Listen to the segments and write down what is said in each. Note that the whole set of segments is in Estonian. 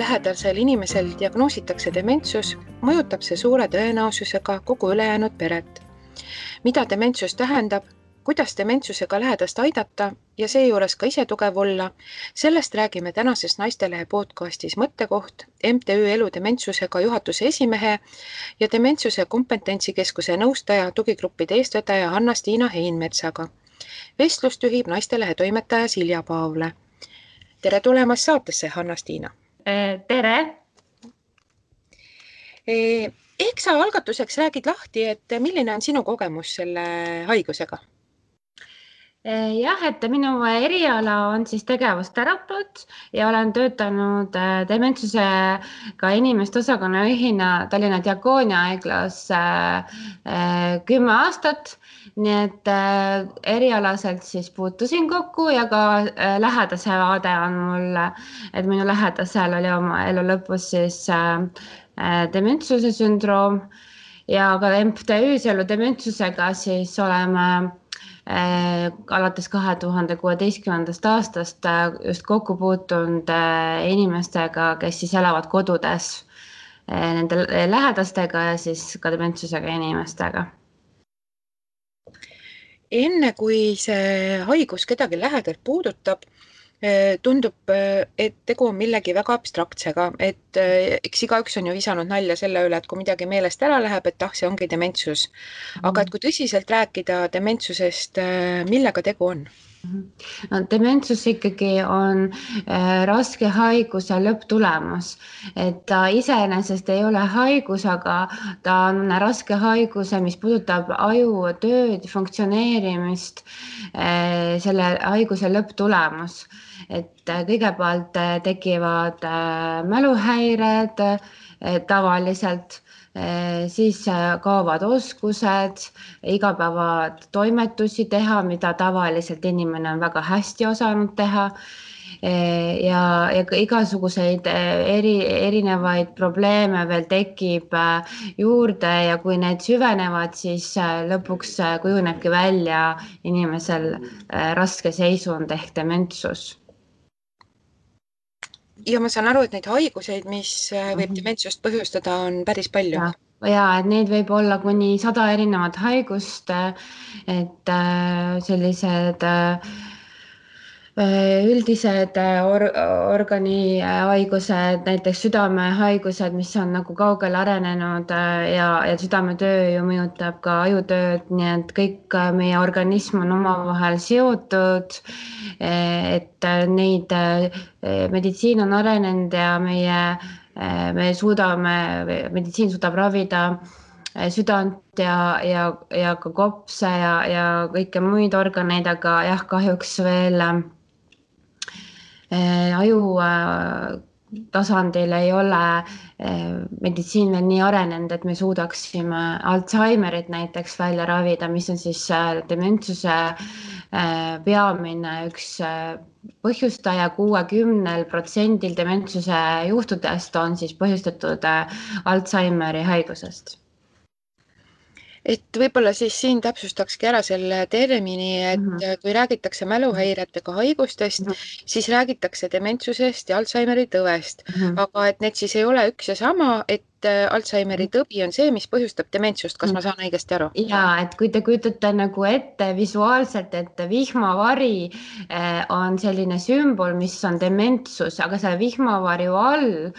lähedasel inimesel diagnoositakse dementsus, mõjutab see suure tõenäosusega kogu ülejäänud peret. Mida dementsus tähendab, kuidas dementsusega lähedast aidata ja seejuures ka ise tugev olla, sellest räägime tänases Naistelehe podcastis Mõttekoht MTÜ Elu dementsusega juhatuse esimehe ja dementsuse kompetentsikeskuse nõustaja tugigruppide eestvedaja Hanna-Stiina Heinmetsaga. Vestlust juhib Naistelehe toimetaja Silja Paavle. Tere tulemast saatesse, Hanna-Stiina! Tere! Ehk sa algatuseks räägid lahti, et milline on sinu kogemus selle haigusega? Jah, et minu eriala on siis tegevusterapeut ja olen töötanud dementsusega inimeste osakonna juhina Tallinna Diakoonia haiglas 10 aastat. Nii et erialaselt siis puutusin kokku ja ka lähedase vaade on mul, et minu lähedasel oli oma elu lõpus siis dementsuse sündroom ja ka MTÜ-s Elu dementsusega siis oleme alates 2016. aastast just kokku puutunud inimestega, kes siis elavad kodudes nende lähedastega ja siis ka dementsusega inimestega. Enne kui see haigus kedagi lähedalt puudutab, tundub, et tegu on millegi väga abstraktsega, et eks igaüks on ju visanud nalja selle üle, et kui midagi meelest ära läheb, et see ongi dementsus. Aga et kui tõsiselt rääkida dementsusest, millega tegu on? No, dementsus ikkagi on raske haiguse lõpptulemus, et ta iseenesest ei ole haigus, aga ta on raske haiguse, mis puudutab aju tööd, funktsioneerimist, selle haiguse lõpptulemus. Et kõigepealt tekivad mäluhäired tavaliselt, siis kaovad oskused, igapäevatoimetusi teha, mida tavaliselt inimene on väga hästi osanud teha ja igasuguseid erinevaid probleeme veel tekib juurde ja kui need süvenevad, siis lõpuks kujunebki välja inimesel raske seisund ehk dementsus. Ja ma saan aru, et neid haiguseid, mis võib dementsust põhjustada, on päris palju. Ja, et neid võib olla kuni 100 erinevat haigust, et sellised üldised organihaigused, näiteks südamehaigused, mis on nagu kaugele arenenud ja südametöö ju mõjutab ka ajutööd, nii et kõik meie organism on omavahel seotud, et neid meditsiin on arenenud ja meditsiin suudab ravida südant ja ka kopse ja kõike muid organeid, aga jah, kahjuks veel aju tasandil ei ole meditsiin veel nii arenenud, et me suudaksime Alzheimerit näiteks välja ravida, mis on siis dementsuse peamine üks põhjustaja. 60% dementsuse juhtudest on siis põhjustatud Alzheimeri haigusest. Et võib-olla siis siin täpsustakski ära selle termini, et kui räägitakse mäluhäiretega haigustest, siis räägitakse dementsusest ja Alzheimeri tõvest. Aga et need siis ei ole üks ja sama, et Alzheimeri tõbi on see, mis põhjustab dementsust. Kas ma saan õigesti aru? Ja, et kui te kujutate nagu ette visuaalselt, et vihmavari on selline sümbol, mis on dementsus, aga see vihmavarju all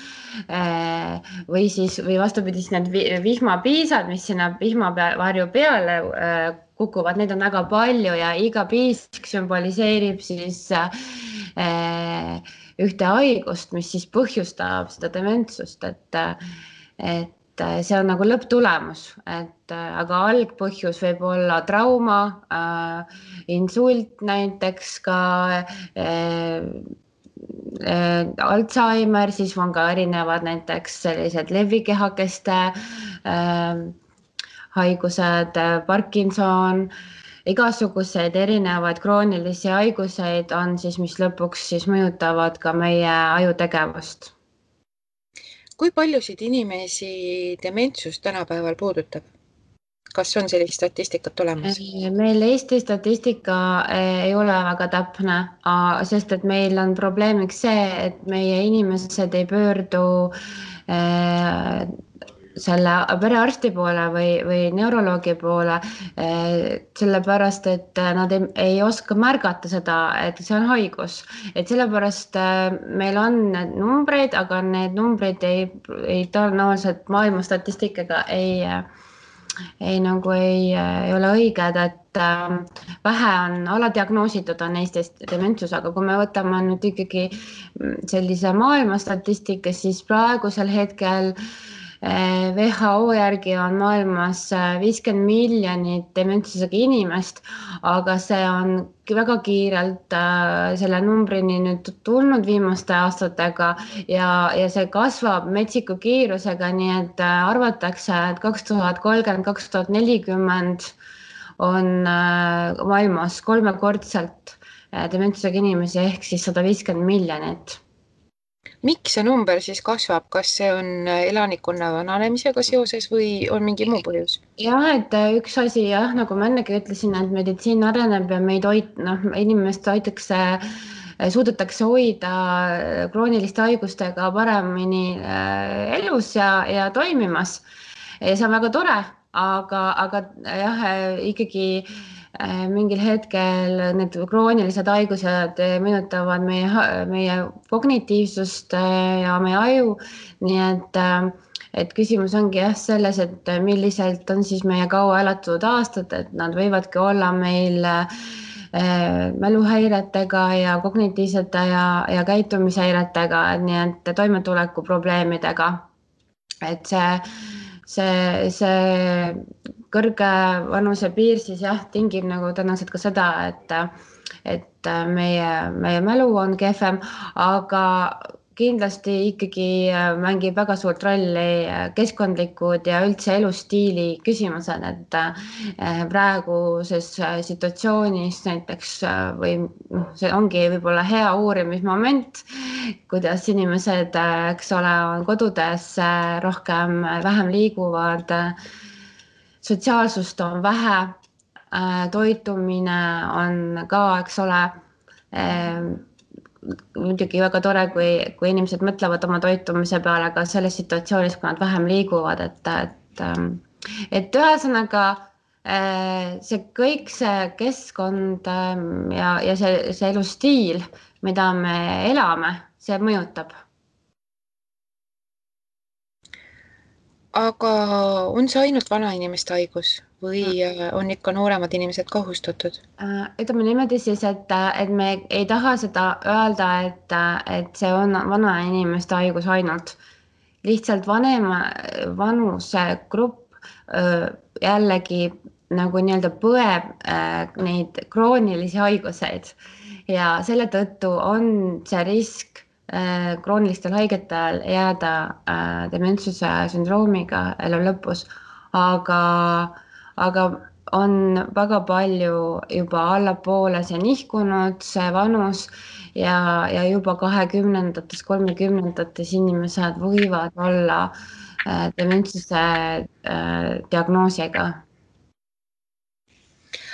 või vastupidi, need vihmapiisad, mis sinna vihmavarju peale kukuvad, neid on väga palju ja iga piisk sümboliseerib siis ühte haigust, mis siis põhjustab seda dementsust, et see on nagu lõpptulemus, aga algpõhjus võib olla trauma, insult näiteks ka Alzheimer, siis on ka erinevad näiteks sellised levikehakeste haigused, Parkinson, igasuguseid erinevaid kroonilisi haiguseid on siis, mis lõpuks siis mõjutavad ka meie ajutegevust. Kui paljusid inimesi dementsus tänapäeval puudutab? Kas on sellist statistikat olemas? Meil Eesti statistika ei ole väga täpne, sest et meil on probleemiks see, et meie inimesed ei pöördu selle perearsti poole või neuroloogi poole, sellepärast et nad ei oska märgata seda, et see on haigus. Et sellepärast meil on need numbreid, aga need numbrid ei tõenäoliselt maailma statistikaga ei ole õiged, et vähe on aladiagnoositud on Eestis dementsus, aga kui me võtame nüüd ikkagi sellise maailma statistika, siis praegusel hetkel WHO järgi on maailmas 50 miljonit dementsusega inimest, aga see on väga kiirelt selle numbrini nüüd tulnud viimaste aastatega ja see kasvab metsiku kiirusega, nii et arvatakse, et 2030–2040 on maailmas 3-kordselt dementsusega inimesi ehk siis 150 miljonit. Miks see number siis kasvab? Kas see on elanikkonna vananemisega seoses või on mingi muu põhjus? Jah, et üks asi jah, nagu ma ennegi ütlesin, et meditsiin areneb ja meid inimest suudetakse hoida krooniliste haigustega paremini elus ja toimimas. Ja see on väga tore, aga jah, ikkagi mingil hetkel need kroonilised haigused mõjutavad meie kognitiivsust ja meie aju, nii et küsimus ongi jah selles, et milliselt on siis meie kaua elatud aastad, et nad võivadki olla meil mäluhäiretega ja kognitiivsete ja käitumishäiretega, nii et toimetuleku probleemidega, et see kõrge vanuse piir siis jah, tingib nagu tõenäoliselt ka seda, et meie mälu on kehvem, aga kindlasti ikkagi mängib väga suurt rolli keskkondlikud ja üldse elustiili küsimused, et praeguses situatsioonis näiteks või see ongi võib-olla hea uurimismoment, kuidas inimesed, eks ole, on kodudes vähem liiguvad, sotsiaalsust on vähe, toitumine on ka, eks ole, muidugi väga tore, kui inimesed mõtlevad oma toitumise peale ka selles situatsioonis, kui nad vähem liiguvad, et ühesõnaga see keskkond ja see elustiil, mida me elame, see mõjutab. Aga on see ainult vanainimeste haigus või on ikka nooremad inimesed kohustatud? Ütleme niimoodi siis, et me ei taha seda öelda, et see on vanainimeste haigus ainult. Lihtsalt vanuse grupp jällegi nagu nii-öelda põeb neid kroonilisi haiguseid ja selle tõttu on see risk kroonilistel haigetel jääda dementsuse sündroomiga elu lõpus, aga on väga palju juba allapoole see nihkunud, see vanus ja juba 20-ndates, 30-ndates inimesed võivad olla dementsuse diagnoosiga.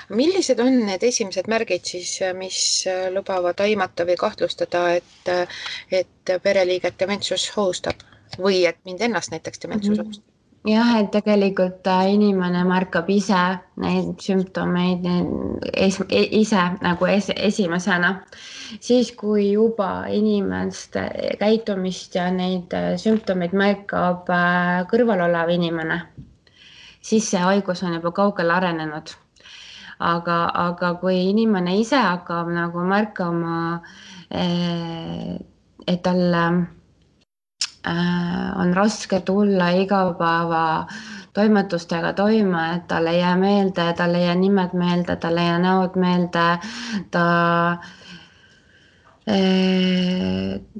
Millised on need esimesed märgid siis, mis lubavad aimata või kahtlustada, et pereliiget dementsus ohustab või et mind ennast näiteks dementsus ohustab? Jah, et tegelikult inimene märkab ise neid sümptomeid ise nagu esimesena. Siis, kui juba inimeste käitumist ja neid sümptomeid märkab kõrval olev inimene, siis see haigus on juba kaugele arenenud. Aga kui inimene ise hakkab nagu märkama, et talle on raske tulla igapäeva toimetustega toime, et talle ei jää meelde, talle ei jää nimed meelde, talle ei jää näod meelde, ta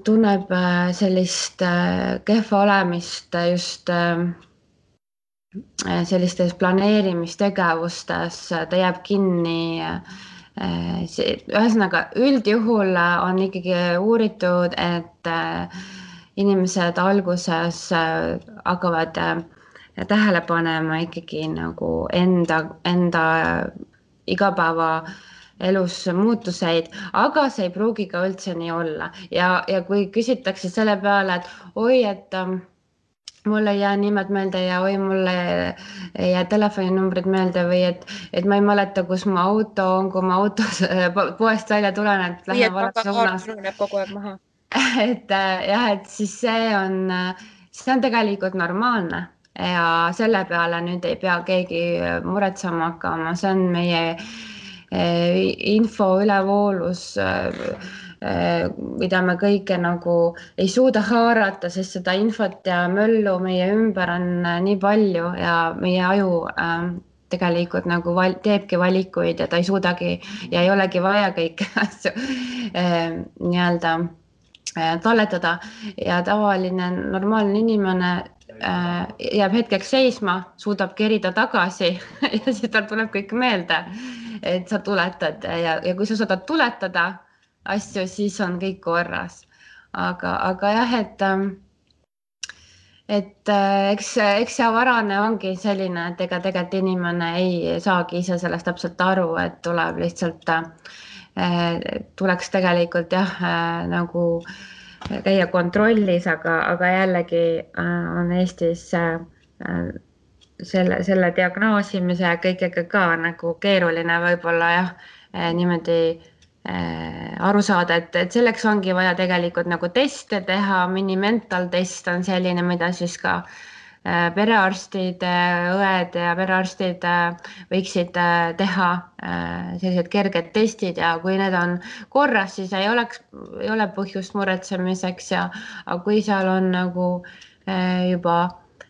tunneb sellist kehva olemist just sellistes planeerimistegevustes, ta jääb kinni. Ühesõnaga, üldjuhul on ikkagi uuritud, et inimesed alguses hakkavad tähele panema ikkagi nagu enda igapäeva elus muutuseid, aga see ei pruugi ka üldse nii olla ja kui küsitakse selle peale, et oi, et mul ei jää nimed meelde ja oi, mulle ei jää telefoninumbrid meelde või et ma ei mäleta, kus mu auto on, kui ma autos poest välja tulen, et lähen vales suunas. Ununeb kogu aeg maha. Et jah, et siis see on tegelikult normaalne ja selle peale nüüd ei pea keegi muretsema hakkama, see on meie info ülevoolus, mida me kõike nagu ei suuda haarata, sest seda infot ja möllu meie ümber on nii palju ja meie aju tegelikult nagu teebki valikuid ja ta ei suudagi ja ei olegi vaja kõiki asju nii-öelda talletada ja tavaline normaalne inimene jääb hetkeks seisma, suudab kerida tagasi ja siis tal tuleb kõik meelde, et sa tuletad ja kui sa suudad tuletada asju, siis on kõik korras. Aga jah, et eks see varane ongi selline, et ega tegelikult inimene ei saagi ise sellest täpselt aru, et tuleb lihtsalt, tuleks tegelikult jah, nagu käia kontrollis, aga jällegi on Eestis selle diagnoosimise ja kõigega ka nagu keeruline võib-olla jah, niimoodi aru saada, et selleks ongi vaja tegelikult nagu teste teha, minimental test on selline, mida siis ka perearstid, õed ja perearstid võiksid teha sellised kerged testid ja kui need on korras, siis ei ole põhjust muretsemiseks aga kui seal on nagu juba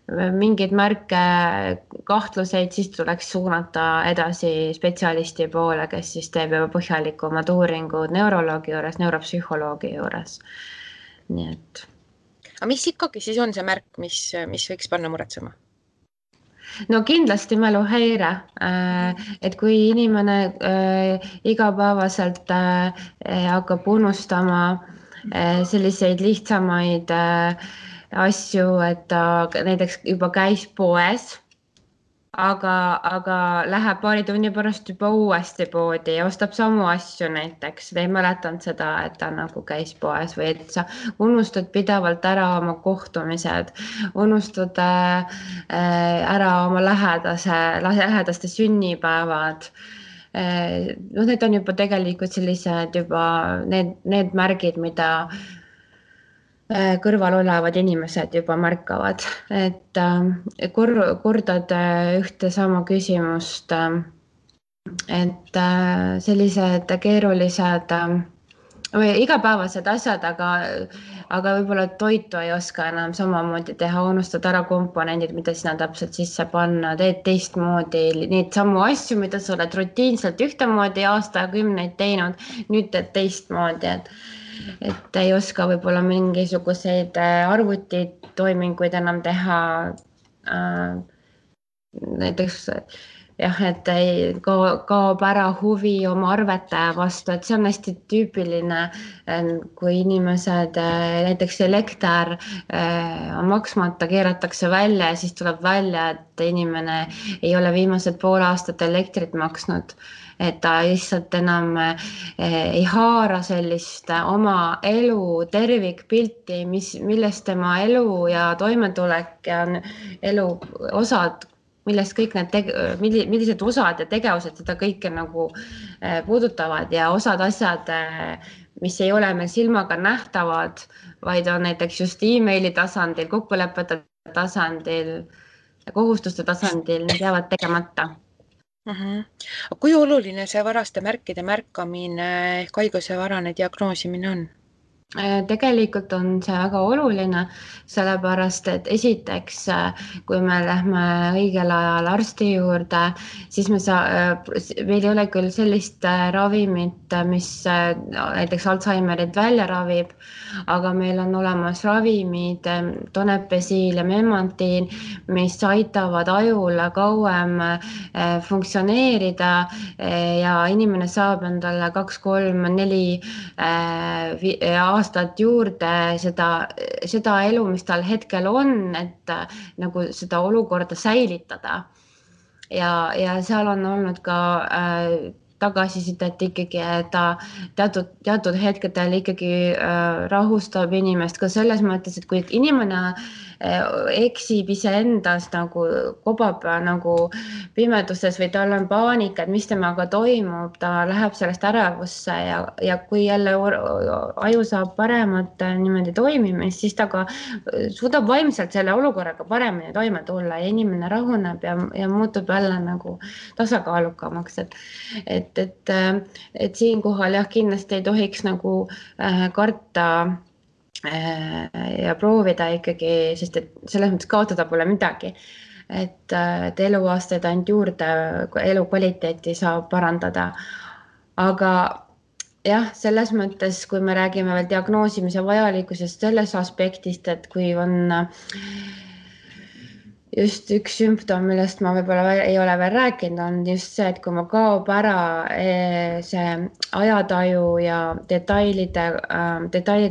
mingeid märke, kahtluseid, siis tuleks suunata edasi spetsialisti poole, kes siis teeb juba põhjalikumad uuringud neuroloogi juures, neuropsühholoogi juures. Nii et. Aga mis ikkagi siis on see märk, mis võiks panna muretsema? No kindlasti mäluhäire, et kui inimene igapäevaselt hakkab unustama selliseid lihtsamaid asju, et ta näiteks juba käis poes, aga läheb paari tunni pärast juba uuesti poodi ja ostab samu asju näiteks. Ta ei mäletanud seda, et ta nagu käis poes või et sa unustad pidevalt ära oma kohtumised, unustad ära oma lähedaste sünnipäevad. No need on juba tegelikult sellised juba need märgid, mida kõrval olevad inimesed juba märkavad, et kordad ühte sama küsimust, et sellised keerulised või igapäevased asjad, aga võib-olla toitu ei oska enam samamoodi teha, unustad ära komponendid, mida sinna täpselt sisse panna, teed teistmoodi neid samu asju, mida sa oled rutiinselt ühtemoodi aastakümneid teinud, nüüd teed teistmoodi, et ei oska võib-olla mingisuguseid arvutitoiminguid enam teha. Näiteks jah, et ei kaob ära huvi oma arvete vastu, et see on hästi tüüpiline, kui inimesed, näiteks elekter on maksmata, keeratakse välja ja siis tuleb välja, et inimene ei ole viimased pool aastat elektrit maksnud. Et ta lihtsalt enam ei haara sellist oma elu tervikpilti, millest tema elu ja toimetulek ja elu osad, millest kõik millised osad ja tegevused seda kõike nagu puudutavad ja osad asjad, mis ei ole meil silmaga nähtavad, vaid on näiteks just emaili tasandil, kokkulepete tasandil, kohustuste tasandil, need jäävad tegemata. Kui oluline see varaste märkide märkamine ehk haiguse varane diagnoosimine on? Tegelikult on see väga oluline, sellepärast, et esiteks, kui me lähme õigel ajal arsti juurde, siis meil ei ole küll sellist ravimit, mis näiteks Alzheimerit välja ravib, aga meil on olemas ravimid, Donepezil ja Memantin, mis aitavad ajul kauem funktsioneerida ja inimene saab endale 2, 3, 4 aastat juurde seda elu, mis tal hetkel on, et nagu seda olukorda säilitada. Ja seal on olnud ka tagasisidet ikkagi, et ta teatud hetkedel ikkagi rahustab inimest ka selles mõttes, et kui inimene eksib iseendas nagu kobab nagu pimeduses või tal on paanika, et mis temaga toimub, ta läheb sellest ärevusse ja kui jälle aju saab paremat niimoodi toimimist, siis ta ka suudab vaimselt selle olukorraga paremini toime tulla ja inimene rahuneb ja muutub jälle nagu tasakaalukamaks, et siinkohal jah, kindlasti ei tohiks nagu karta ja proovida ikkagi, sest et selles mõttes kaotada pole midagi, et eluaastaid ainult juurde, elukvaliteeti saab parandada. Aga jah, selles mõttes, kui me räägime veel diagnoosimise vajalikkusest selles aspektist, et kui on just üks sümptom, millest ma võib-olla ei ole veel rääkinud, on just see, et kui ma kaob ära see ajataju ja detailid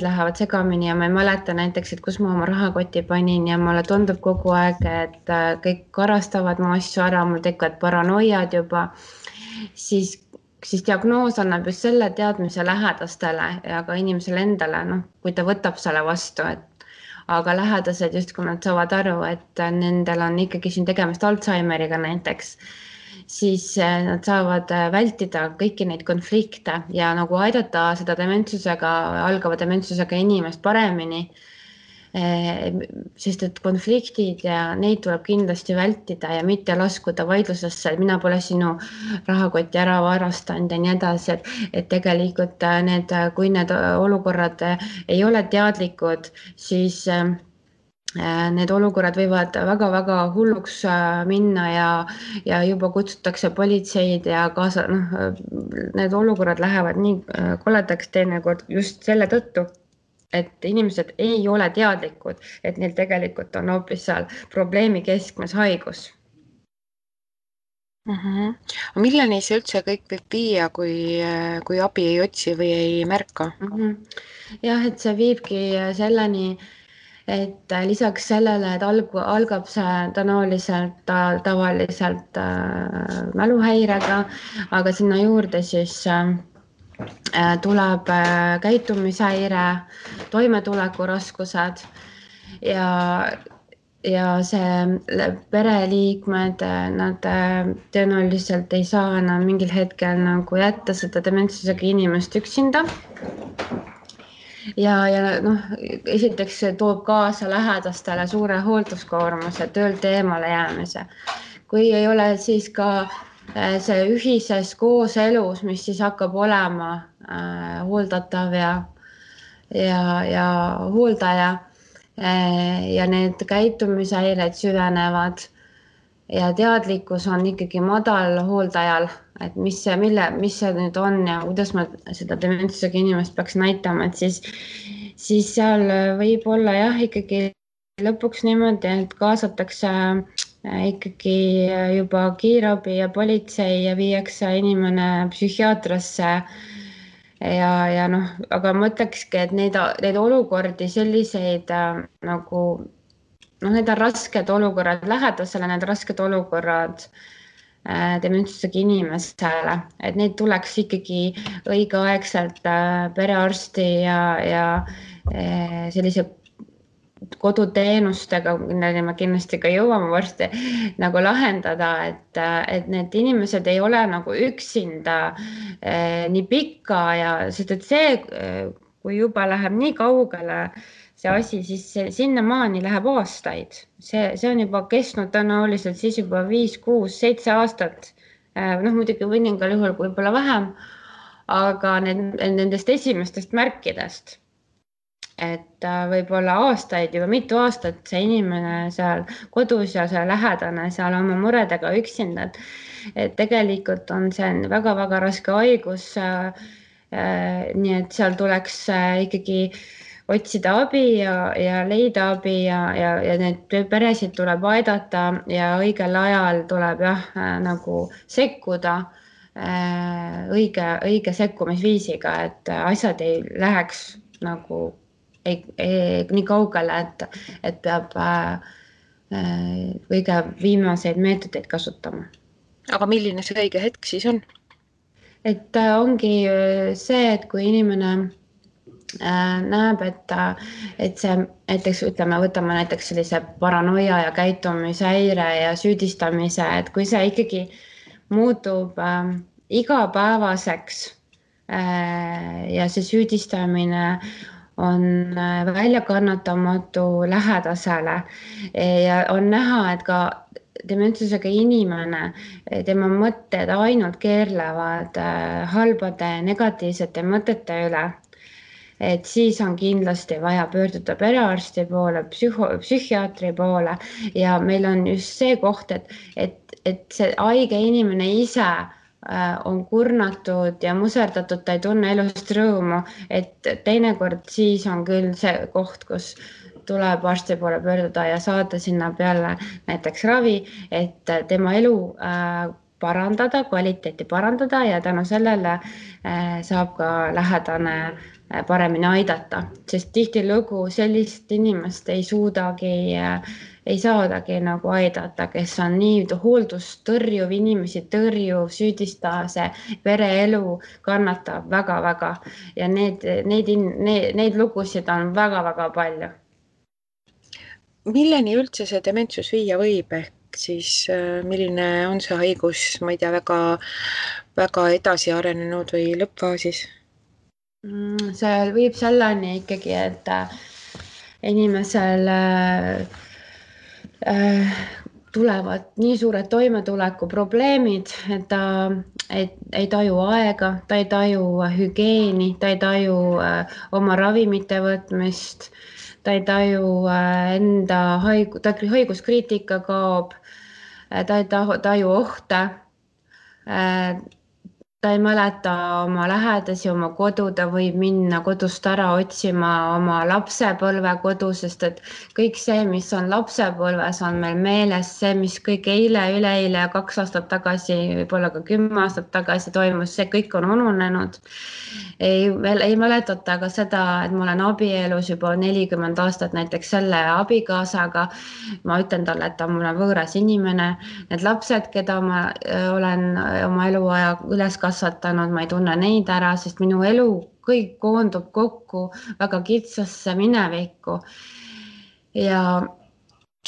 lähevad segamini ja ma ei mäleta näiteks, et kus ma oma rahakoti panin ja mulle tundub kogu aeg, et kõik karastavad mu asju ära, mul tekivad paranoiad juba, siis diagnoos annab just selle teadmise lähedastele ja ka inimesele endale, kui ta võtab selle vastu, aga lähedased justkui nad saavad aru, et nendel on ikkagi siin tegemist Alzheimeriga näiteks, siis nad saavad vältida kõiki neid konflikte ja nagu aidata seda algava dementsusega inimest paremini, sest et konfliktid ja neid tuleb kindlasti vältida ja mitte laskuda vaidlusesse, et mina pole sinu rahakotti ära varastanud ja nii edasi, et tegelikult kui need olukorrad ei ole teadlikud, siis need olukorrad võivad väga-väga hulluks minna ja juba kutsutakse politseid ja kaasa, need olukorrad lähevad nii koledaks teinekord just selle tõttu, et inimesed ei ole teadlikud, et neil tegelikult on hoopis seal probleemi keskmes haigus. Milleni see üldse kõik võib viia, kui abi ei otsi või ei märka? Jah, et see viibki selleni, et lisaks sellele, et algab see tavaliselt mäluhäirega, aga sinna juurde siis tuleb käitumishäire, toimetulekuraskused ja see pereliikmed, nad tõenäoliselt ei saa enam mingil hetkel nagu jätta seda dementsusega inimest üksinda. Ja esiteks see toob kaasa lähedastele suure hoolduskoormuse, töölt eemale jäämise. Kui ei ole siis ka see ühises kooselus, mis siis hakkab olema hooldatav ja hooldaja ja need käitumishäired süvenevad ja teadlikkus on ikkagi madal hooldajal, et mis see nüüd on ja kuidas ma seda dementsusega inimest peaks näitama, et siis seal võib olla jah, ikkagi lõpuks niimoodi, et kaasatakse ikkagi juba kiirabi ja politsei ja viiakse inimene psühhiaatrasse ja aga ma ütlekski, et neid olukordi selliseid nagu need on rasked olukorrad lähedasele, need rasked olukorrad dementsusega inimesele, et neid tuleks ikkagi õigeaegselt perearsti ja sellise koduteenustega, milleni me kindlasti ka jõuame varsti nagu lahendada, et need inimesed ei ole nagu üksinda nii pikka sest et see, kui juba läheb nii kaugele see asi, siis sinnamaani läheb aastaid. See on juba kestnud tõenäoliselt siis juba 5, 6, 7 aastat. Muidugi mõningal juhul võib-olla vähem, aga nendest esimestest märkidest. Et võib-olla aastaid, juba mitu aastat see inimene seal kodus ja see lähedane seal oma muredega üksinda. Et tegelikult on see väga-väga raske haigus. Nii et seal tuleks ikkagi otsida abi ja leida abi ja need peresid tuleb aidata ja õigel ajal tuleb nagu sekkuda õige sekkumisviisiga, et asjad ei läheks nagu nii kaugele, et peab kõige viimaseid meetodeid kasutama. Aga milline see õige hetk siis on? Et ongi see, et kui inimene näeb, et see näiteks ütleme, võtame näiteks sellise paranoia ja käitumishäire ja süüdistamise, et kui see ikkagi muutub igapäevaseks ja see süüdistamine on väljakannatamatu lähedasele ja on näha, et ka dementsusega inimene, tema mõtted ainult keerlevad halbade negatiivsete mõtete üle, et siis on kindlasti vaja pöörduda perearsti poole, psühhiaatri poole ja meil on just see koht, et see haige inimene ise on kurnatud ja muserdatud, ta ei tunne elust rõõmu, et teinekord siis on küll see koht, kus tuleb arsti poole pöörduda ja saada sinna peale näiteks ravi, et tema elu parandada, kvaliteeti parandada ja tänu sellele saab ka lähedane paremini aidata, sest tihtilugu sellist inimest ei saadagi nagu aidata, kes on nii hooldust tõrjuv, inimesi tõrjuv, süüdistase, pereelu kannatab väga-väga ja neid lugusid on väga-väga palju. Milleni üldse see dementsus viia võib, ehk siis milline on see haigus, ma ei tea, väga edasi arenenud või lõppfaasis? See viib selleni ikkagi, et inimesel tulevad nii suured toimetulekuprobleemid, et ta ei taju aega, ta ei taju hügieeni, ta ei taju oma ravimite võtmist, ta ei taju enda haiguskriitika kaob, ta ei taju ohte, ta ei mäleta oma lähedasi, oma kodu, ta võib minna kodust ära otsima oma lapsepõlve kodu, sest et kõik see, mis on lapsepõlves, on meil meeles, see, mis kõik eile, üleeile ja 2 aastat tagasi, võib-olla ka 10 aastat tagasi toimus, see kõik on ununenud. Ei mäletata ka seda, et ma olen abielus juba 40 aastat näiteks selle abikaasaga. Ma ütlen talle, et ta on mulle võõras inimene. Need lapsed, keda ma olen oma eluaja üles kasvatanud, ma ei tunne neid ära, sest minu elu kõik koondub kokku väga kitsasse minevikku.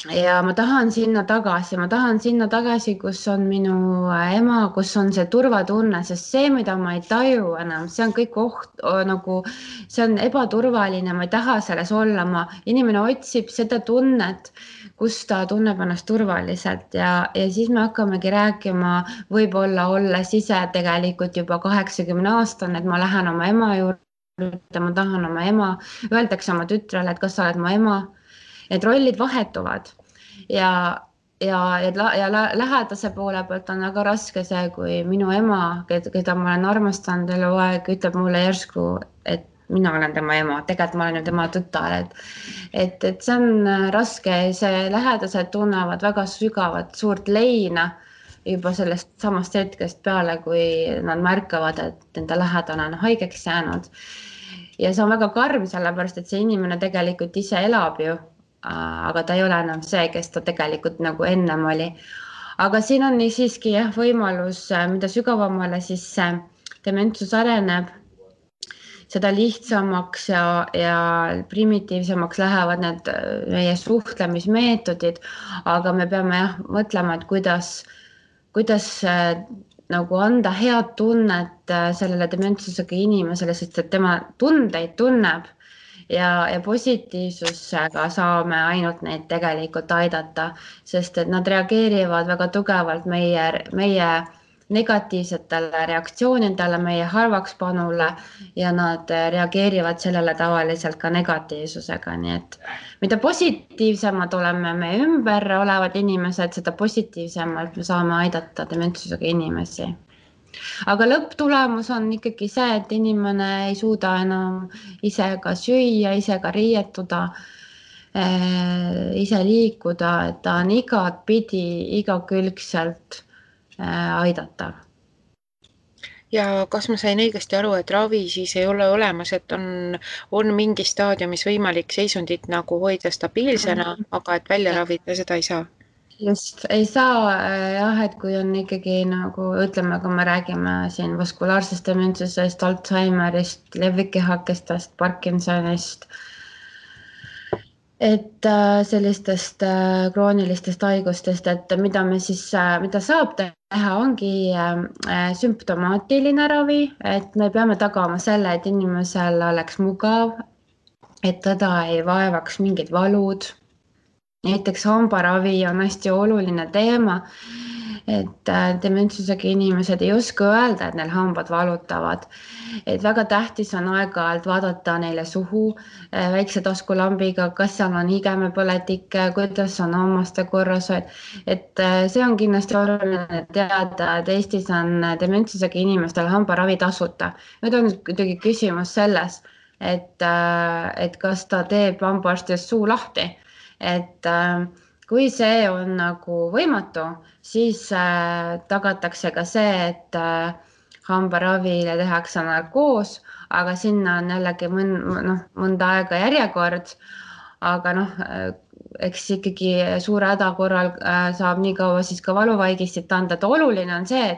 Ja ma tahan sinna tagasi, kus on minu ema, kus on see turvatunne, sest see, mida ma ei taju enam, see on kõik see on ebaturvaline, ma ei taha selles olla, inimene otsib seda tunnet, kus ta tunneb ennast turvaliselt ja siis me hakkamegi rääkima, võib-olla olles ise tegelikult juba 80-aastane, et ma lähen oma ema juurde, ma tahan oma ema, öeldakse oma tütrele, et kas sa oled mu ema. Need rollid vahetuvad ja lähedase poole pealt on väga raske see, kui minu ema, keda ma olen armastanud eluaeg, ütleb mulle järsku, et mina olen tema ema, tegelikult ma olen ju tema tütar, et see on raske, see lähedased tunnevad väga sügavat suurt leina juba sellest samast hetkest peale, kui nad märkavad, et enda lähedane on haigeks jäänud. Ja see on väga karm, sellepärast, et see inimene tegelikult ise elab ju, aga ta ei ole enam see, kes ta tegelikult nagu ennem oli. Aga siin on siiski võimalus, mida sügavamale siis dementsus areneb, seda lihtsamaks ja primitiivsemaks lähevad need meie suhtlemismeetodid, aga me peame mõtlema, et kuidas nagu anda head tunnet sellele dementsusega inimesele, sest et tema tundeid tunneb ja positiivsusega saame ainult neid tegelikult aidata, sest et nad reageerivad väga tugevalt meie negatiivsetele reaktsioonidele, meie halvakspanule ja nad reageerivad sellele tavaliselt ka negatiivsusega, nii et mida positiivsemad oleme me ümber olevad inimesed, seda positiivsemalt me saame aidata dementsusega inimesi. Aga lõpptulemus on ikkagi see, et inimene ei suuda enam ise ka süüa, ise ka riietuda, ise liikuda, et ta on igatpidi, igakülgselt aidatav. ja kas ma sain õigesti aru, et ravi siis ei ole olemas, et on mingi staadiumis võimalik seisundit nagu hoida stabiilsena, aga et välja ravida seda ei saa? Just, ei saa jah, et kui on ikkagi nagu ütleme, kui me räägime siin vaskulaarsest dementsusest, Alzheimerist, levikihakestest, Parkinsonist, et sellistest kroonilistest haigustest, et mida me siis, mida saab teha, ongi sümptomaatiline ravi, et me peame tagama selle, et inimesel oleks mugav, et teda ei vaevaks mingid valud. Näiteks hambaravi on hästi oluline teema, et dementsusega inimesed ei oska öelda, et neil hambad valutavad. Et väga tähtis on aeg-ajalt vaadata neile suhu väikse taskulambiga, kas seal on higemepõletik, kuidas on hammaste korrashoid. Et see on kindlasti oluline teada, et Eestis on dementsusega inimestel hambaravi tasuta. Nüüd on kuidagi küsimus selles, et kas ta teeb hambaarstist suu lahti. Et kui see on nagu võimatu, siis tagatakse ka see, et hambaravile tehakse narkoos, aga sinna on jällegi mõnda aega järjekord, aga eks ikkagi suure häda korral saab nii kaua siis ka valuvaigistit anda, et oluline on see,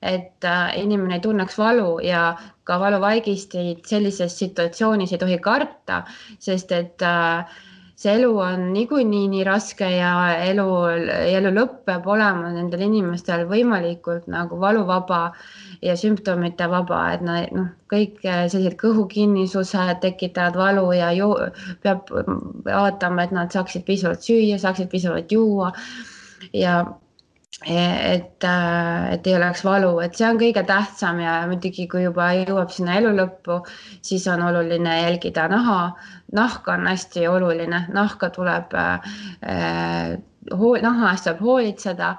et inimene ei tunneks valu ja ka valuvaigistit sellises situatsioonis ei tohi karta, sest et see elu on niikuinii nii raske ja elu lõpp peab olema nendel inimestel võimalikult nagu valuvaba ja sümptomite vaba, et kõik sellised kõhukinnisused tekitavad valu ja peab vaatama, et nad saaksid piisavalt süüa, saaksid piisavalt juua ja et ei oleks valu, et see on kõige tähtsam ja muidugi, kui juba jõuab sinna elu lõppu, siis on oluline jälgida naha. Nahk on hästi oluline, nahka tuleb, naha eest tuleb hoolitseda,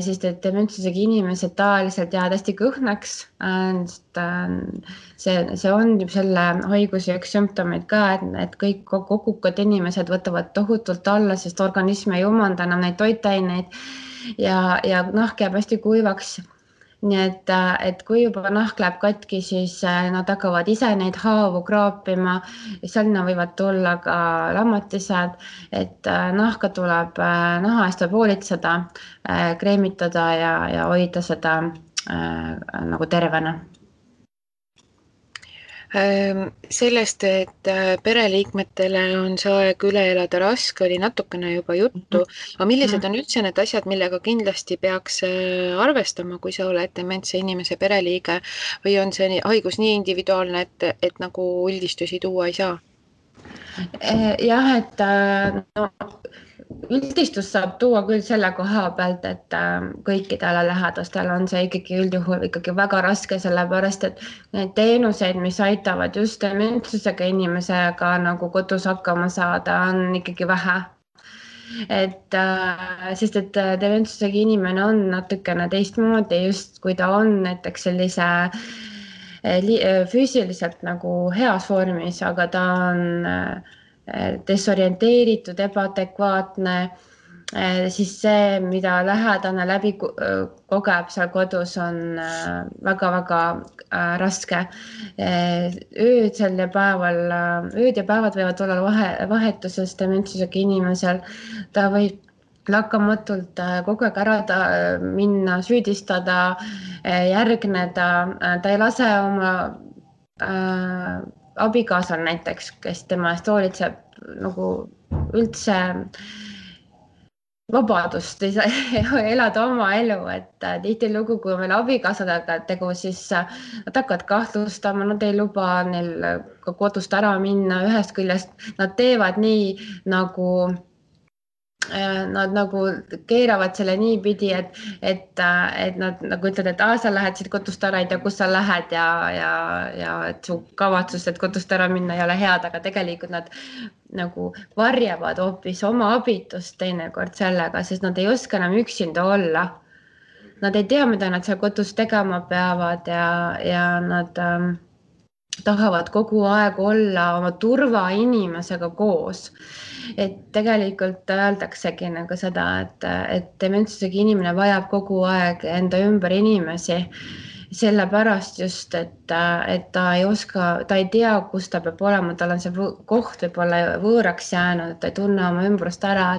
sest et dementsusega inimesed tavaliselt jäävad hästi kõhnaks. See on selle haiguse üks sümptomeid ka, et kõik kogukad inimesed võtavad tohutult alla, sest organism ei umanda enam neid toitaineid ja nahk jääb hästi kuivaks. Nii et kui juba nahk läheb katki, siis nad hakkavad ise neid haavu kraapima. Selline võivad tulla ka lammatised, et nahka tuleb, naha eest tuleb hoolitseda, kreemitada ja hoida seda nagu tervena. Sellest, et pereliikmetele on see aeg üle elada raske, oli natukene juba juttu, aga millised on üldse need asjad, millega kindlasti peaks arvestama, kui sa oled dementse inimese pereliige või on see haigus nii individuaalne, et nagu üldistusi tuua ei saa? Jah, et üldistust saab tuua küll selle koha pealt, et kõikidele lähedastel on see ikkagi üldjuhul ikkagi väga raske, sellepärast et need teenuseid, mis aitavad just dementsusega inimesega nagu kodus hakkama saada, on ikkagi vähe. Sest et dementsusega inimene on natukene teistmoodi, just kui ta on näiteks sellise füüsiliselt nagu heas vormis, aga ta on desorienteeritud, ebaadekvaatne, siis see, mida lähedane läbi kogeb seal kodus, on väga-väga raske. Ööd ja päevad võivad olla vahetuses dementsusega inimesel. Ta võib lakkamatult kogu aeg ära minna, süüdistada, järgneda. Ta ei lase oma abikaasal näiteks, kes tema eest hoolitseb, nagu üldse vabadust ei saa elada oma elu, et tihtilugu, kui meil abikaasadega tegu, siis nad hakkavad kahtlustama, nad ei luba neil ka kodust ära minna. Ühest küljest nad teevad nii, nagu nad nagu keeravad selle niipidi, et nad nagu ütlevad, et sa lähed siit kodust ära, ei tea, kus sa lähed ja et su kavatsus, et kodust ära minna ei ole head, aga tegelikult nad nagu varjavad hoopis oma abitust teinekord sellega, sest nad ei oska enam üksinda olla. Nad ei tea, mida nad seal kodus tegema peavad ja nad tahavad kogu aeg olla oma turvainimesega koos. Et tegelikult öeldaksegi nagu seda, et dementsusega inimene vajab kogu aeg enda ümber inimesi sellepärast just, et ta ei oska, ta ei tea, kus ta peab olema, tal on see koht võib-olla võõraks jäänud, ta ei tunne oma ümbrust ära,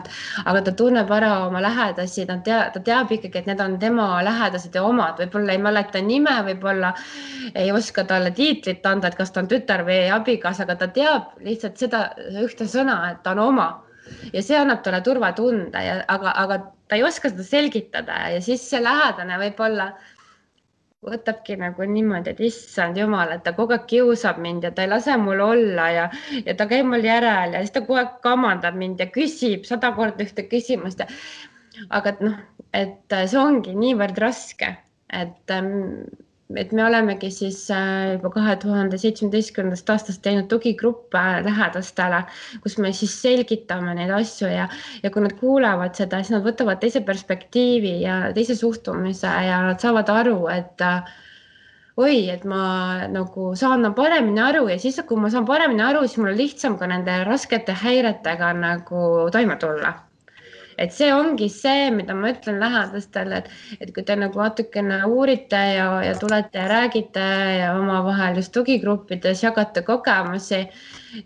aga ta tunneb ära oma lähedasi, ta teab ikkagi, et need on tema lähedased ja omad, võib-olla ei mäleta nime, võib-olla ei oska talle tiitlit anda, et kas ta on tütar või abikaasa, aga ta teab lihtsalt seda ühte sõna, et ta on oma. Ja see annab talle turvatunde, aga ta ei oska seda selgitada ja siis see lähedane võib-olla võtabki nagu niimoodi, et issand jumal, et ta kogu aeg kiusab mind ja ta ei lase mul olla ja ta käib mul järel ja siis ta kogu aeg kamandab mind ja küsib 100 korda ühte küsimust. Aga et see ongi niivõrd raske, et me olemegi siis juba 2017. aastast teinud tugigruppe lähedastele, kus me siis selgitame neid asju ja kui nad kuulevad seda, siis nad võtavad teise perspektiivi ja teise suhtumise ja nad saavad aru, et et ma nagu saan paremini aru ja siis, kui ma saan paremini aru, siis mul on lihtsam ka nende raskete häiretega nagu toime tulla. Et see ongi see, mida ma ütlen lähedastele, et kui te nagu natukene uurite ja tulete ja räägite ja omavahel just tugigruppides jagate kogemusi,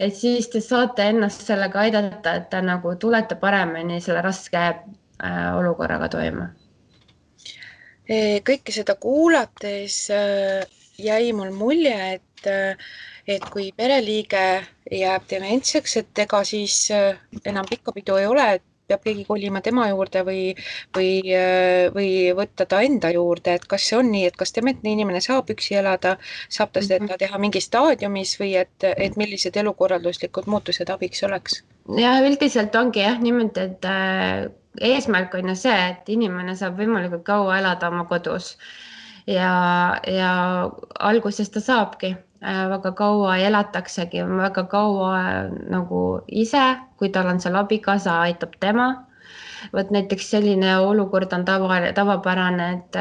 et siis te saate ennast sellega aidata, et te nagu tulete paremini selle raske olukorraga toime. Kõike seda kuulates jäi mul mulje, et kui pereliige jääb dementseks, et ega siis enam pikka pidu ei ole, et peab keegi kolima tema juurde või võtta ta enda juurde, et kas see on nii, et kas dementne inimene saab üksi elada, saab ta seda teha mingis staadiumis või et millised elukorralduslikud muutused abiks oleks? Ja üldiselt ongi niimoodi, et eesmärk on ju see, et inimene saab võimalikult kaua elada oma kodus ja alguses ta saabki väga kaua elataksegi, väga kaua nagu ise, kui tal on seal abikaasa, aitab tema. Võt näiteks selline olukord on tavapärane, et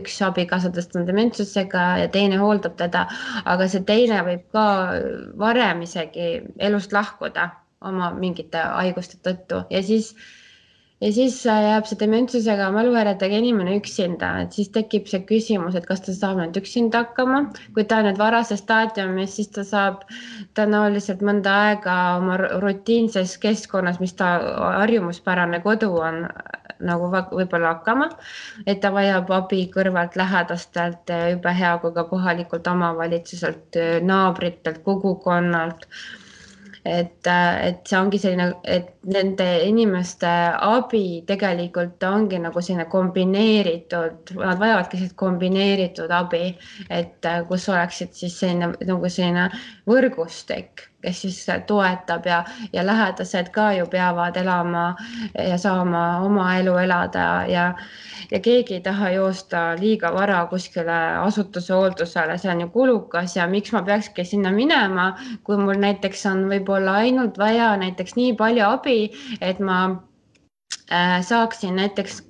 üks abikaasadest on dementsusega ja teine hooldab teda, aga see teine võib ka varem isegi elust lahkuda oma mingite haiguste tõttu ja siis jääb see dementsusega mäluhäiretega inimene üksinda, et siis tekib see küsimus, et kas ta saab nüüd üksinda hakkama. Kui ta on nüüd varases staadiumis, siis ta saab tõenäoliselt mõnda aega oma rutiinses keskkonnas, mis ta harjumuspärane kodu on, nagu võib-olla hakkama, et ta vajab abi kõrvalt lähedastelt, jube hea kui ka kohalikult omavalitsuselt, naabritelt, kogukonnalt. Et see ongi selline, et nende inimeste abi tegelikult ongi nagu selline kombineeritud, nad vajavadki sellist kombineeritud abi, et kus oleksid siis selline võrgustik, kes siis toetab ja lähedased ka ju peavad elama ja saama oma elu elada ja keegi ei taha joosta liiga vara kuskile asutuse hooldusele, see on ju kulukas ja miks ma peakski sinna minema, kui mul näiteks on võib-olla ainult vaja näiteks nii palju abi, et ma saaksin näiteks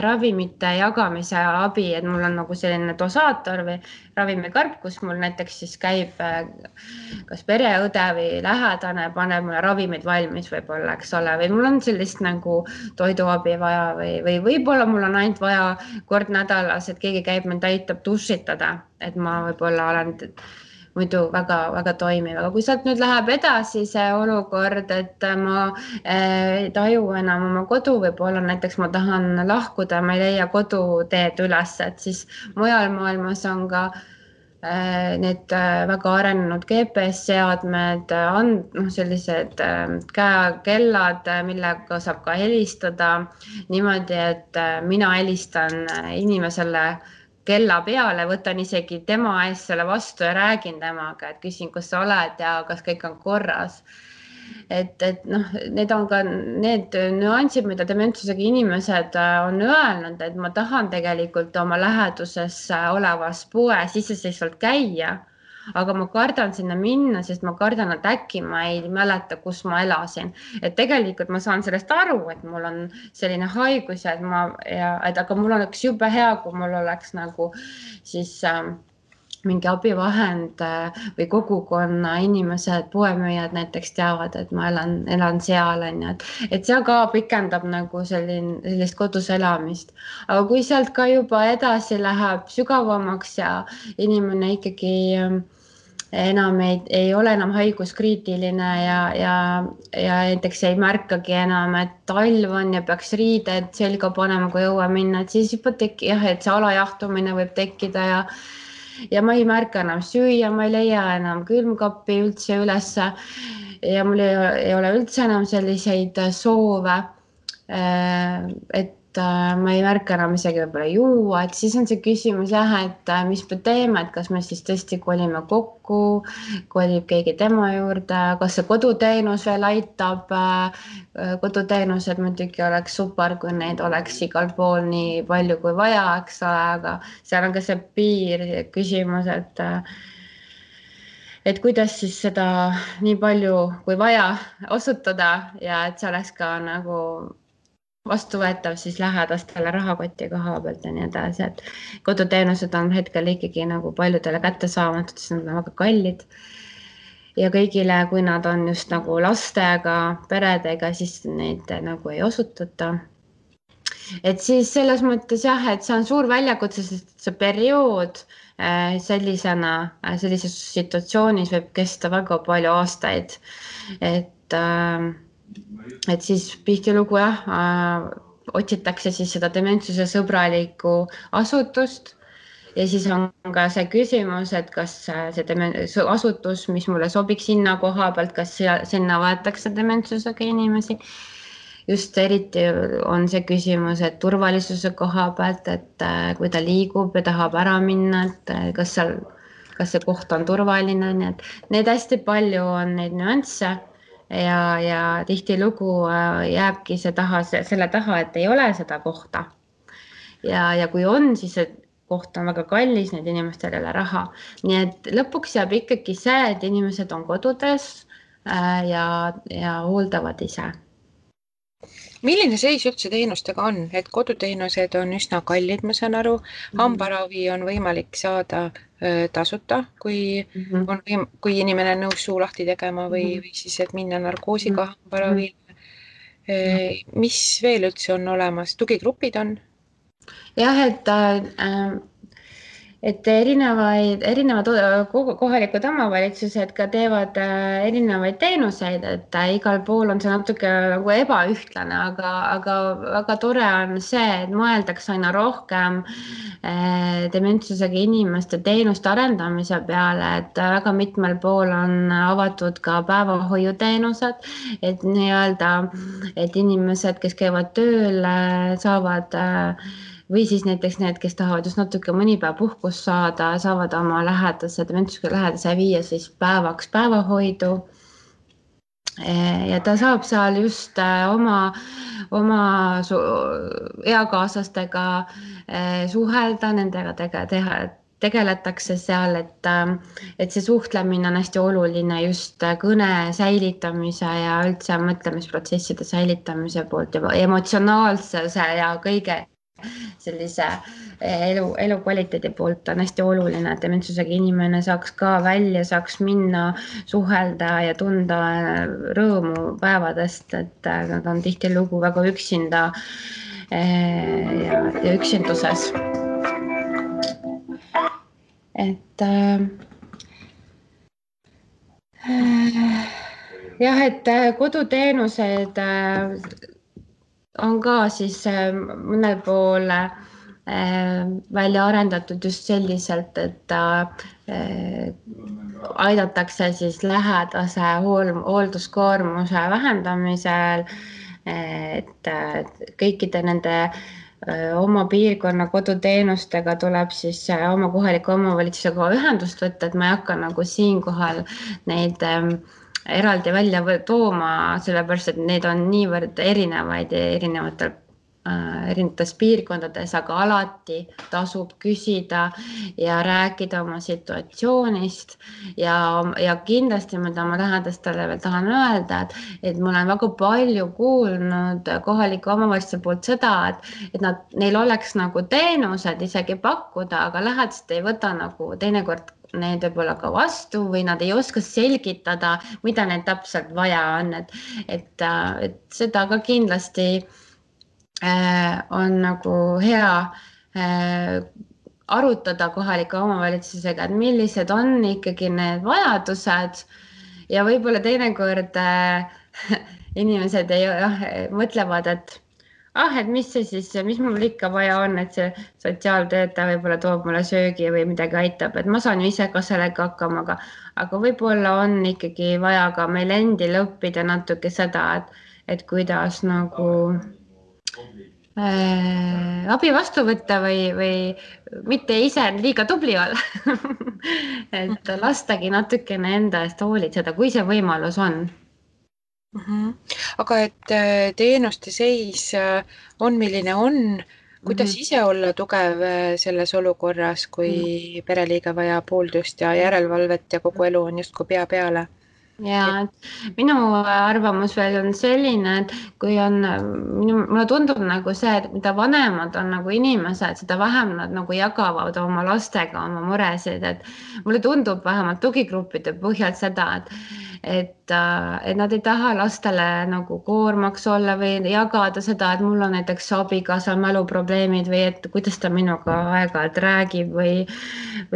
ravimite jagamise abi, et mul on nagu selline dosaator või ravimikarp, kus mul näiteks siis käib kas pereõde või lähedane, paneb mulle ravimid valmis võib-olla, eks ole, või mul on sellist nagu toiduabi vaja või võib-olla mul on ainult vaja kord nädalas, et keegi käib mind aitab dušitada, et ma võib-olla olen muidu väga toimiv, aga kui sealt nüüd läheb edasi see olukord, et ma ei taju enam oma kodu, võib-olla näiteks ma tahan lahkuda, ma ei leia koduteed üles, et siis mujal maailmas on ka need väga arenenud GPS-seadmed, sellised käekellad, millega saab ka helistada niimoodi, et mina helistan inimesele kella peale, võtan isegi tema ees selle vastu ja räägin temaga, et küsin, kus sa oled ja kas kõik on korras. Et need on ka need nüansid, mida dementsusega inimesed on öelnud, et ma tahan tegelikult oma läheduses olevas poes iseseisvalt käia, aga ma kardan sinna minna, sest ma kardan, et äkki ma ei mäleta, kus ma elasin. Et tegelikult ma saan sellest aru, et mul on selline haigus aga mul oleks jube hea, kui mul oleks nagu siis mingi abivahend või kogukonna inimesed, poemüüjad näiteks teavad, et ma elan seal, on ju, et see ka pikendab nagu sellist kodus elamist. Aga kui sealt ka juba edasi läheb sügavamaks ja inimene ikkagi enam ei ole enam haiguskriitiline ja näiteks ei märkagi enam, et talv on ja peaks riided selga panema, kui õue minna, et siis juba et see alajahtumine võib tekkida ja ma ei märka enam süüa, ma ei leia enam külmkappi üldse ülesse ja mul ei ole üldse enam selliseid soove, et ma ei märka enam isegi võib-olla juua, et siis on see küsimus jah, et mis me teeme, et kas me siis tõesti kolime kokku, kolib keegi tema juurde, kas see koduteenus veel aitab, koduteenused muidugi oleks super, kui neid oleks igal pool nii palju kui vaja, eks ole, aga seal on ka see piir küsimus, et kuidas siis seda nii palju kui vaja osutada ja et see oleks ka nagu vastuvõetav siis lähedastele rahakoti koha pealt ja nii edasi, et koduteenused on hetkel ikkagi nagu paljudele kättesaamatud, sest nad on väga kallid. Ja kõigile, kui nad on just nagu lastega, peredega, siis neid nagu ei osutata. Et siis selles mõttes jah, et see on suur väljakutse, sest see periood sellises situatsioonis võib kesta väga palju aastaid. Et siis tihtilugu otsitakse siis seda dementsuse sõbralikku asutust ja siis on ka see küsimus, et kas see asutus, mis mulle sobiks sinna koha pealt, kas sinna võetakse dementsusega inimesi. Just eriti on see küsimus, et turvalisuse koha pealt, et kui ta liigub ja tahab ära minna, et kas see koht on turvaline, nii et need hästi palju on neid nüansse. Ja tihtilugu jääbki selle taha, et ei ole seda kohta. Ja kui on, siis see koht on väga kallis, need inimestel ei ole raha. Nii et lõpuks jääb ikkagi see, et inimesed on kodudes ja hooldavad ise. Milline seis üldse teenustega on, et koduteenused on üsna kallid, ma saan aru, hambaravi on võimalik saada tasuta, kui inimene on nõus suu lahti tegema või siis, et minna narkoosiga hambaravile. Mis veel üldse on olemas? Tugigrupid on? Jah, et erinevad kohalikud omavalitsused ka teevad erinevaid teenuseid, et igal pool on see natuke nagu ebaühtlane, aga väga tore on see, et mõeldakse aina rohkem dementsusega inimeste teenuste arendamise peale, et väga mitmel pool on avatud ka päevahoiuteenused, et nii-öelda, et inimesed, kes käivad tööl, saavad või siis näiteks need, kes tahavad just natuke mõni päev puhkust saada, saavad oma dementsusega lähedase viia siis päevaks päevahoidu. Ja ta saab seal just oma eakaaslastega suhelda, nendega tegeletakse seal, et see suhtlemine on hästi oluline just kõne säilitamise ja üldse mõtlemisprotsesside säilitamise poolt ja emotsionaalsuse ja kõige sellise elukvaliteedi poolt on hästi oluline, et dementsusega inimene saaks ka välja, saaks minna, suhelda ja tunda rõõmu päevadest, et nad on tihtilugu väga üksinda ja üksinduses. Et jah, et koduteenused on ka siis mõnel pool välja arendatud just selliselt, et aidatakse siis lähedase hoolduskoormuse vähendamisel, et kõikide nende oma piirkonna koduteenustega tuleb siis oma kohaliku omavalitsusega ühendust võtta, et ma ei hakka nagu siinkohal neid eraldi välja tooma, sellepärast, et need on niivõrd erinevaid ja erinevatel erinevates piirkondades, aga alati tasub küsida ja rääkida oma situatsioonist ja kindlasti, mida ma lähedastele veel tahan öelda, et ma olen väga palju kuulnud kohalike omavalitsuste poolt seda, et neil oleks nagu teenused isegi pakkuda, aga lähedased ei võta nagu teinekord need võib-olla ka vastu või nad ei oska selgitada, mida neil täpselt vaja on, et seda ka kindlasti on nagu hea arutada kohalike omavalitsusega, et millised on ikkagi need vajadused ja võib-olla teinekord inimesed mõtlevad, et mis mul ikka vaja on, et see sotsiaaltöötaja võib-olla toob mulle söögi või midagi aitab, et ma saan ju ise ka sellega hakkama, aga võib-olla on ikkagi vaja ka meil endil õppida natuke seda, et kuidas nagu abi vastu võtta või mitte ise liiga tubli olla. et lastagi natukene enda eest hoolitseda, kui see võimalus on. Aga et teenuste seis on, milline on, kuidas ise olla tugev selles olukorras, kui pereliige vajab hooldust ja järelevalvet ja kogu elu on justkui pea peale? Ja minu arvamus veel on selline, et kui on, mulle tundub nagu see, et mida vanemad on nagu inimesed, seda vähem nad nagu jagavad oma lastega oma muresid, et mulle tundub vähemalt tugigruppide põhjal seda, et nad ei taha lastele nagu koormaks olla või jagada seda, et mul on näiteks abikaasa mäluprobleemid või et kuidas ta minuga aeg-ajalt räägib või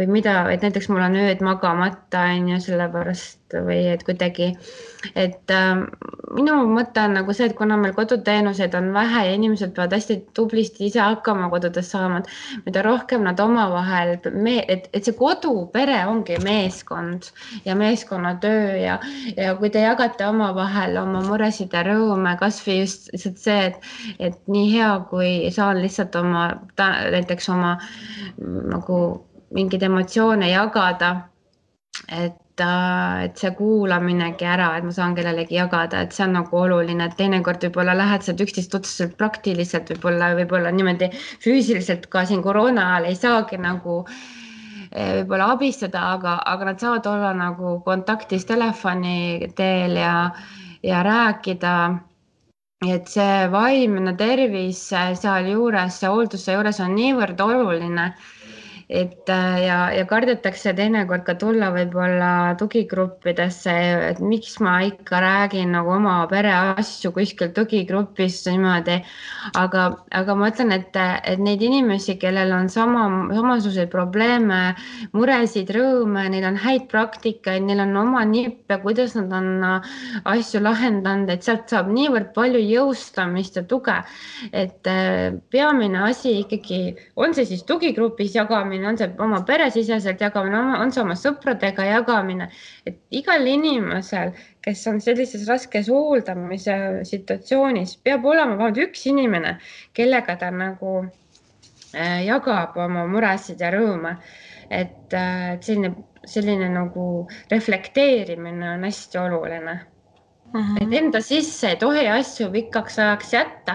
mida, et näiteks mul on ööd magamata on ju sellepärast või et kuidagi, et minu mõte on nagu see, et kuna meil koduteenuseid on vähe ja inimesed peavad hästi tublisti ise hakkama kodudes saama, mida rohkem nad omavahel, et see kodupere ongi meeskond ja meeskonnatöö ja kui te jagate omavahel oma muresid ja rõõme, kas või just lihtsalt see, et nii hea, kui saan lihtsalt näiteks oma nagu mingeid emotsioone jagada, et see kuulaminegi ära, et ma saan kellelegi jagada, et see on nagu oluline, et teinekord võib-olla lähedased üksteist otseselt praktiliselt võib-olla niimoodi füüsiliselt ka siin koroona ajal ei saagi nagu võib-olla abistada, aga nad saavad olla nagu kontaktis telefoni teel ja rääkida, et see vaimne tervis sealjuures, see hoolduse juures on niivõrd oluline, et ja kardetakse teinekord ka tulla võib-olla tugigruppidesse, et miks ma ikka räägin nagu oma pere asju kuskil tugigrupis niimoodi, aga ma ütlen, et neid inimesi, kellel on samasuguseid probleeme, muresid, rõõme, neil on häid praktikaid, neil on oma nippe, kuidas nad on asju lahendanud, et sealt saab niivõrd palju jõustamist ja tuge, et peamine asi ikkagi on see siis tugigrupis jagamine, on see oma peresiseselt jagamine, on see oma sõpradega jagamine, et igal inimesel, kes on sellises raskes hooldamise situatsioonis, peab olema vähemalt üks inimene, kellega ta nagu jagab oma muresid ja rõõme, et selline nagu reflekteerimine on hästi oluline. Et enda sisse ei tohi asju pikaks ajaks jätta,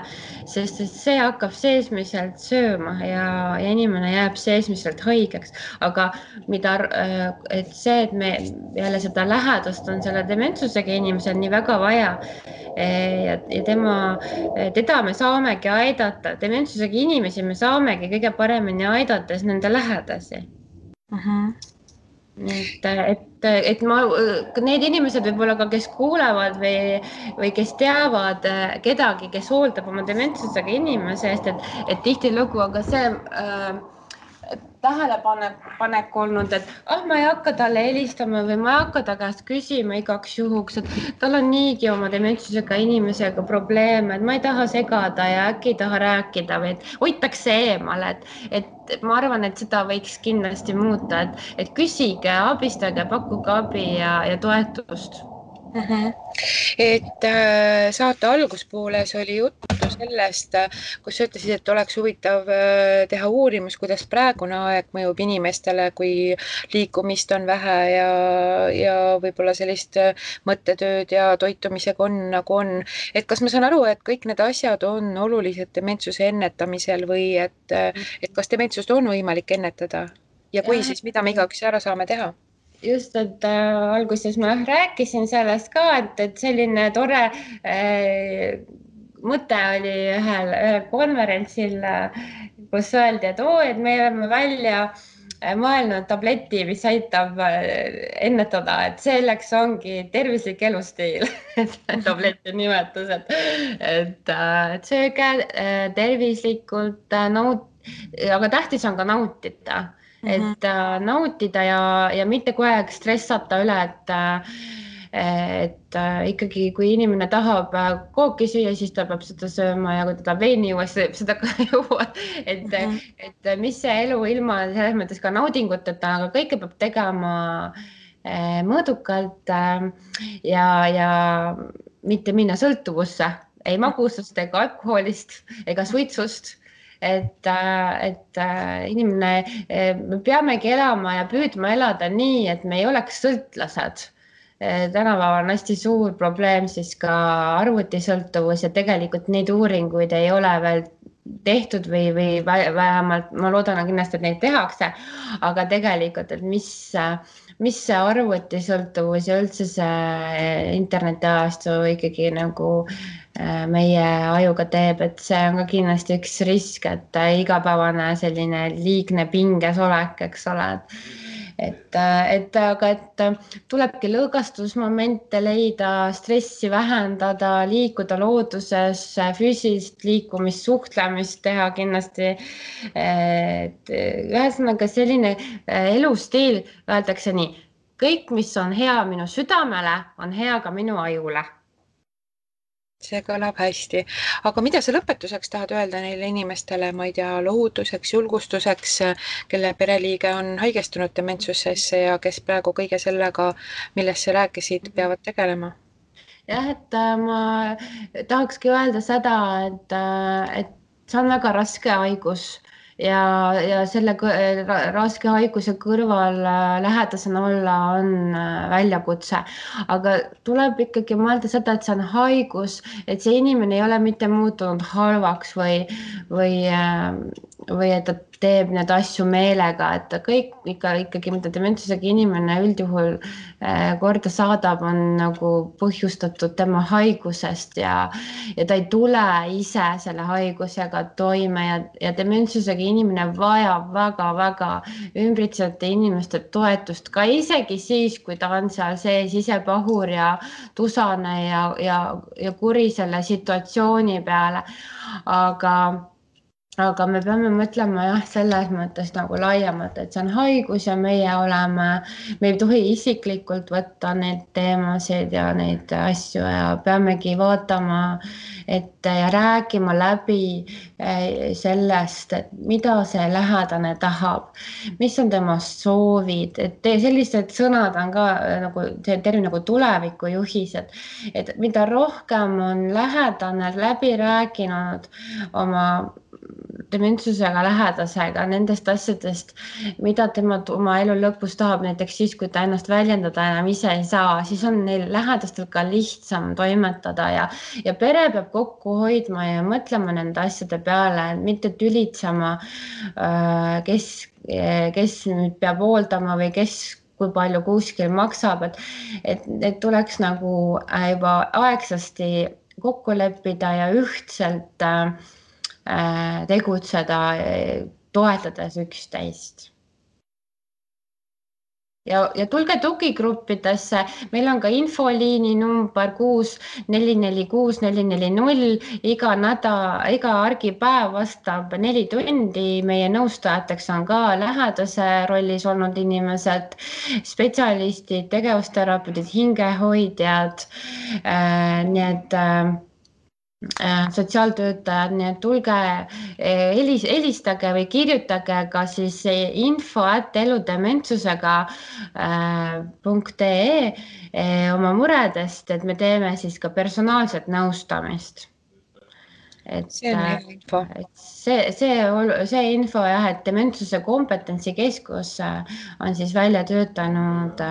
sest see hakkab seesmiselt sööma ja inimene jääb seesmiselt haigeks. Aga et see, et me jälle seda lähedast on selle dementsusega inimesel nii väga vaja ja teda me saamegi aidata, dementsusega inimesi me saamegi kõige paremini aidates nende lähedasi. Et need inimesed võib-olla ka, kes kuulevad või kes teavad kedagi, kes hooldab oma dementsusega inimese eest, et tihtilugu on ka see tähelepanek olnud, et ma ei hakka talle helistama või ma ei hakka ta käest küsima igaks juhuks, et tal on niigi oma dementsusega inimesega probleeme, et ma ei taha segada ja äkki ei taha rääkida või et hoitakse eemale, et ma arvan, et seda võiks kindlasti muuta, et küsige, abistage, pakkuge abi ja toetust. Et saate alguspooles oli juttu juttu sellest, kus sa ütlesid, et oleks huvitav teha uurimus, kuidas praegune aeg mõjub inimestele, kui liikumist on vähe ja võib-olla sellist mõttetööd ja toitumisega on nagu on. Et kas ma saan aru, et kõik need asjad on olulised dementsuse ennetamisel või et kas dementsust on võimalik ennetada ja kui, Jah, siis mida me igaüks ära saame teha? just, et alguses ma rääkisin sellest ka, et selline tore mõte oli ühel konverentsil, kus öeldi, et me oleme välja mõelnud tableti, mis aitab ennetada, et selleks ongi tervislik elustiil tableti nimetus, et sööge tervislikult, aga tähtis on ka nautida. Et nautida ja mitte kogu aeg stressata üle, et ikkagi, kui inimene tahab kooki süüa, siis ta peab seda sööma ja kui ta tahab veini juua, siis seda ka juua. Et mis see elu ilma selles mõttes ka naudinguteta, aga kõike peab tegema mõõdukalt ja mitte minna sõltuvusse, ei magusast ega alkoholist ega suitsust. Et inimene, me peamegi elama ja püüdma elada nii, et me ei oleks sõltlased. Tänapäeval on hästi suur probleem siis ka arvutisõltuvus ja tegelikult neid uuringuid ei ole veel tehtud või vähemalt ma loodan kindlasti, et neid tehakse, aga tegelikult, et mis see arvutisõltuvus ja üldse see internetiajastu ikkagi nagu meie ajuga teeb, et see on ka kindlasti üks risk, et igapäevane selline liigne pinges olek, eks ole, aga tulebki lõõgastusmomente leida, stressi vähendada, liikuda looduses, füüsilist liikumist, suhtlemist teha kindlasti. Ühesõnaga selline elustiil, öeldakse nii, kõik, mis on hea minu südamele, on hea ka minu ajule. See kõlab hästi. Aga mida sa lõpetuseks tahad öelda neile inimestele, ma ei tea, lohutuseks, julgustuseks, kelle pereliige on haigestunud dementsusesse ja kes praegu kõige sellega, millest sa rääkisid, peavad tegelema? Jah, et ma tahakski öelda seda, et see on väga raske haigus ja selle raske haiguse kõrval lähedasena olla on väljakutse, aga tuleb ikkagi mõelda seda, et see on haigus, et see inimene ei ole mitte muutunud halvaks või et ta teeb need asju meelega, et kõik ikkagi, mida dementsusega inimene üldjuhul korda saadab, on nagu põhjustatud tema haigusest ja ta ei tule ise selle haigusega toime ja dementsusega inimene vajab väga-väga ümbritsevate inimeste toetust, ka isegi siis, kui ta on seal sees ise pahur ja tusane ja kuri selle situatsiooni peale, aga me peame mõtlema jah, selles mõttes nagu laiemalt, et see on haigus ja me ei tohi isiklikult võtta neid teemasid ja neid asju ja peamegi vaatama ette ja rääkima läbi sellest, et mida see lähedane tahab, mis on tema soovid, et sellised sõnad on ka nagu see termin nagu tulevikujuhised, et mida rohkem on lähedane läbi rääkinud oma dementsusega lähedasega nendest asjadest, mida tema oma elu lõpus tahab, näiteks siis, kui ta ennast väljendada enam ise ei saa, siis on neil lähedastel ka lihtsam toimetada ja pere peab kokku hoidma ja mõtlema nende asjade peale, mitte tülitsema, kes nüüd peab hooldama või kui palju kuskil maksab, et tuleks nagu juba aegsasti kokku leppida ja ühtselt tegutseda, toetades üksteist. Ja tulge tugigruppidesse, meil on ka infoliini number 6446440, iga argipäev vastab 4 tundi, meie nõustajateks on ka lähedase rollis olnud inimesed, spetsialistid, tegevusterapeudid, hingehoidjad, nii et sotsiaaltöötajad, nii et tulge, helistage või kirjutage ka siis info@eludementsusega.ee oma muredest, et me teeme siis ka personaalset nõustamist. See on hea info. See info jah, et Dementsuse kompetentsikeskus on siis välja töötanud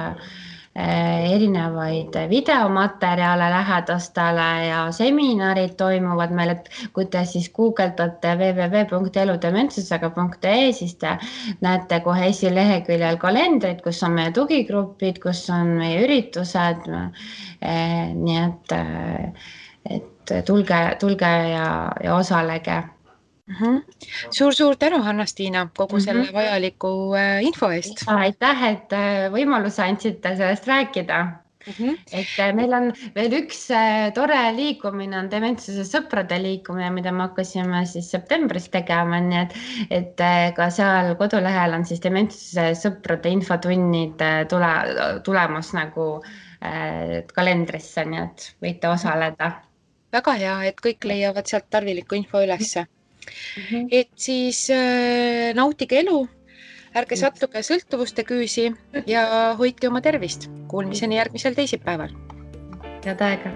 erinevaid videomaterjale lähedastele ja seminarid toimuvad meil, et kui te siis guugeldate www.eludementsusega.ee, siis te näete kohe esileheküljel kalendrit, kus on meie tugigrupid, kus on meie üritused. Nii et tulge ja osalege. Suur tänu, Anna-Stiina, kogu selle vajaliku info eest. Aitäh, et võimaluse andsite sellest rääkida. Et meil on veel üks tore liikumine, on Dementsuse sõprade liikumine, mida me hakkasime siis septembris tegema, nii et ka seal kodulehel on siis Dementsuse sõprade infotunnid tulemas nagu kalendrisse, nii et võite osaleda. Väga hea, et kõik leiavad sealt tarviliku info ülesse. Et siis nautige elu, ärge sattuge sõltuvuste küüsi ja hoidke oma tervist. Kuulmiseni järgmisel teisipäeval. Head aega!